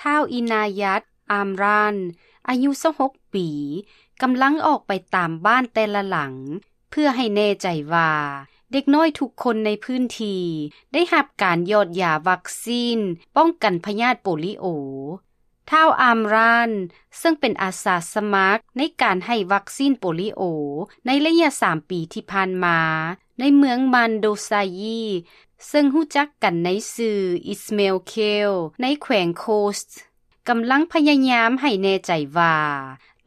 ທ້າວ ອິນາຍັດ ອາມຣານ ອາຍຸຊາວຫົກປີ ກຳລັງອອກໄປຕາມບ້ານແຕ່ລະຫຼັງ ເພື່ອໃຫ້ແນ່ໃຈວ່າເດັກນ້ອຍທຸກຄົນໃນພື້ນທີ່ໄດ້ຮັບການຢອດຢາວັກຊີນປ້ອງກັນພະຍາດໂປລິໂອ. ທ້າວ ອາມຣານ ເຊິ່ງເປັນອາສາສະໝັກໃນການໃຫ້ວັກຊີນໂປລິໂອໃນໄລຍະສາມປີທີ່ຜ່ານມາ ໃນເມືອງມານໂດຊາຢີ ເຊິ່ງຮູ້ຈັກກັນໃນຊື່ ອິສເມລ ເຄລ ໃນແຂວງໂຄສ ກຳລັງພະຍາຍາມໃຫ້ແນ່ໃຈວ່າ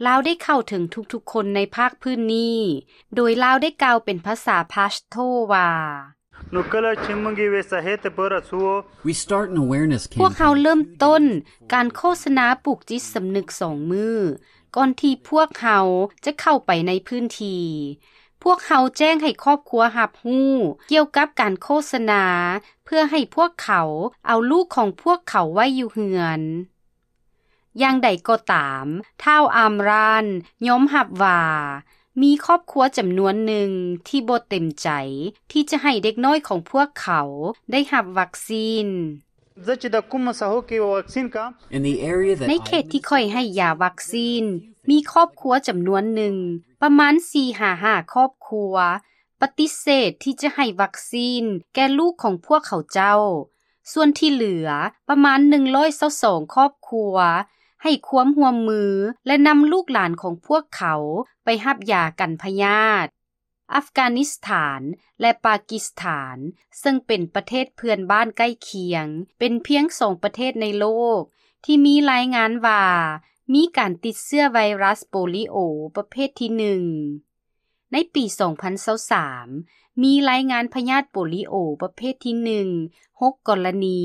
ລາວໄດ້ເຂົ້າເຖິງທຸກໆຄົນໃນພາກພື້ນນີ້, ໂດຍລາວໄດ້ກ່າວເປັນພາສາພາສໂທວ່າ Nukala chimungi we sahete pora suo. We start an awareness campaign. ພວກເຮົາເລີ່ມຕົ້ນການໂຄສະນາປູກຈິດສຳນຶກສອງມື້ ກ່ອນທີ່ພວກເຮົາຈະເຂົ້າໄປໃນພື້ນທີ່. ພວກເຮົາແຈ້ງໃຫ້ຄອບຄົວຮັບຮູ້ກ່ຽວກັບການໂຄສະນາ ເພື່ອໃຫ້ພວກເຂົາເອົາລູກຂອງພວກເຂົາໄວ້ຢູ່ເຮືອນ. ຢ່າງໃດກໍຕາມ, ທ້າວ ອາມຣານ ຍອມຮັບວ່າ ມີຄອບຄົວຈຳນວນໜຶ່ງທີ່ບໍ່ເຕັມໃຈທີ່ຈະໃຫ້ເດັກນ້ອຍຂອງພວກເຂົາໄດ້ຮັບວັກຊີນ. In the area that ໃນເຂດທີ່ຂ້ອຍໃຫ້ຢາວັກຊີນ ມີຄອບຄົວຈຳນວນໜຶ່ງ ປະມານສີ່ຫາຫ້າຄອບຄົວ ປະຕິເສດທີ່ຈະໃຫ້ວັກຊີນແກ່ລູກຂອງພວກເຂົາເຈົ້າ. ສ່ວນທີ່ເຫຼືອປະມານໜຶ່ງຮ້ອຍຊາວສອງຄອບຄົວ ໃຫ້ຄວາມຮ່ວມມື ແລະ ນຳລູກຫຼານຂອງພວກເຂົາໄປຮັບຢາກັນພະຍາດ. ອັຟການິສຖານ ແລະ ປາກິສຖານ ເຊິ່ງເປັນປະເທດເພື່ອນບ້ານໃກ້ຄຽງ ເປັນພຽງສອງປະເທດໃນໂລກທີ່ມີລາຍງານວ່າ ມີການຕິດເຊື້ອໄວຣັສໂປລິໂອປະເພດທີໜຶ່ງ. ໃນປີສອງພັນຊາວສາມ ມີລາຍງານພະຍາດໂປລິໂອປະເພດທີໜຶ່ງ ຫົກກໍລະນີ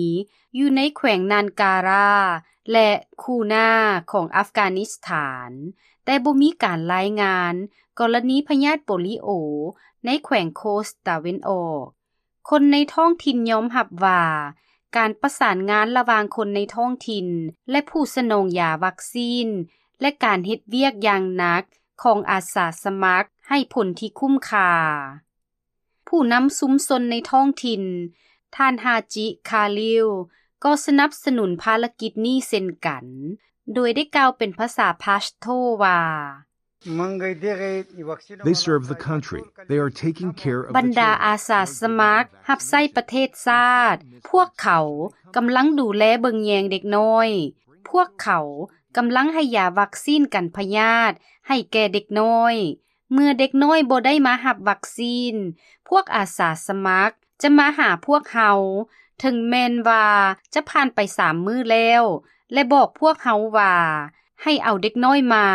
ຢູ່ໃນແຂວງນານກາຣາ ແລະ ຄູນາ ຂອງອັຟການິສຖານ, ແຕ່ບໍ່ມີການລາຍງານກໍລະນີພະຍາດໂປລິໂອໃນແຂວງໂຄສຕາເວັນອອກ. ຄົນໃນທ້ອງຖິ່ນຍອມຮັບວ່າ ການປະສານງານລະຫວ່າງຄົນໃນທ້ອງຖິ່ນ ແລະ ຜູ້ສະໜອງຢາວັກຊີນ ແລະ ການເຮັດວຽກຢ່າງໜັກຂອງອາສາສະໝັກໃຫ້ຜົນທີ່ຄຸ້ມຄ່າ. ຜູ້ນຳຊຸມຊົນໃນທ້ອງຖິ່ນ ທ່ານ ຮາຈິ ຄາລິວ ກໍສະໜັບສະໜູນພາລະກິດນີ້ເຊັ່ນກັນ, ໂດຍໄດ້ກ່າວເປັນພາສາພາສໂທວ່າ They serve the country. They are taking care of the ບັນດາ children. ອາສາສະໝັກຮັບໃຊ້ປະເທດຊາດ, ພວກເຂົາກຳລັງດູແລເບິ່ງແຍງເດັກນ້ອຍ, ພວກເຂົາກຳລັງໃຫ້ຢາວັກຊີນກັນພະຍາດໃຫ້ແກ່ເດັກນ້ອຍ. ເມື່ອເດັກນ້ອຍບໍ່ໄດ້ມາຮັບວັກຊີນ, ພວກອາສາສະໝັກຈະມາຫາພວກເຮົາ, ເຖິງແມ່ນວ່າຈະຜ່ານໄປສາມມື້ແລ້ວ ແລະ ບອກພວກເຮົາວ່າ ໃຫ້ເອົາເດັກນ້ອຍມາ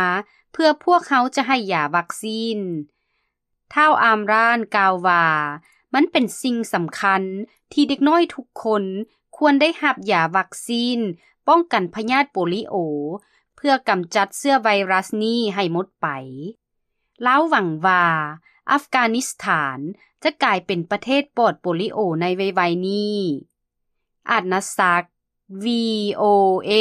ເພື່ອພວກເຮົາຈະໃຫ້ຢາວັກຊີນ. ທ້າວ ອາມຣານ ກ່າວວ່າ ມັນເປັນສິ່ງສຳຄັນທີ່ເດັກນ້ອຍທຸກຄົນຄວນໄດ້ຮັບຢາວັກຊີນປ້ອງກັນພະຍາດໂປລິໂອ ເພື່ອກຳຈັດເຊື້ອໄວຣັສນີ້ໃຫ້ໝົດໄປ. ລາວຫວັງວ່າອັຟການິສຖານຈະກາຍເປັນປະເທດປອດໂປລິໂອໃນໄວໆນີ້. ອາດນະສັກ ວີໂອເອ.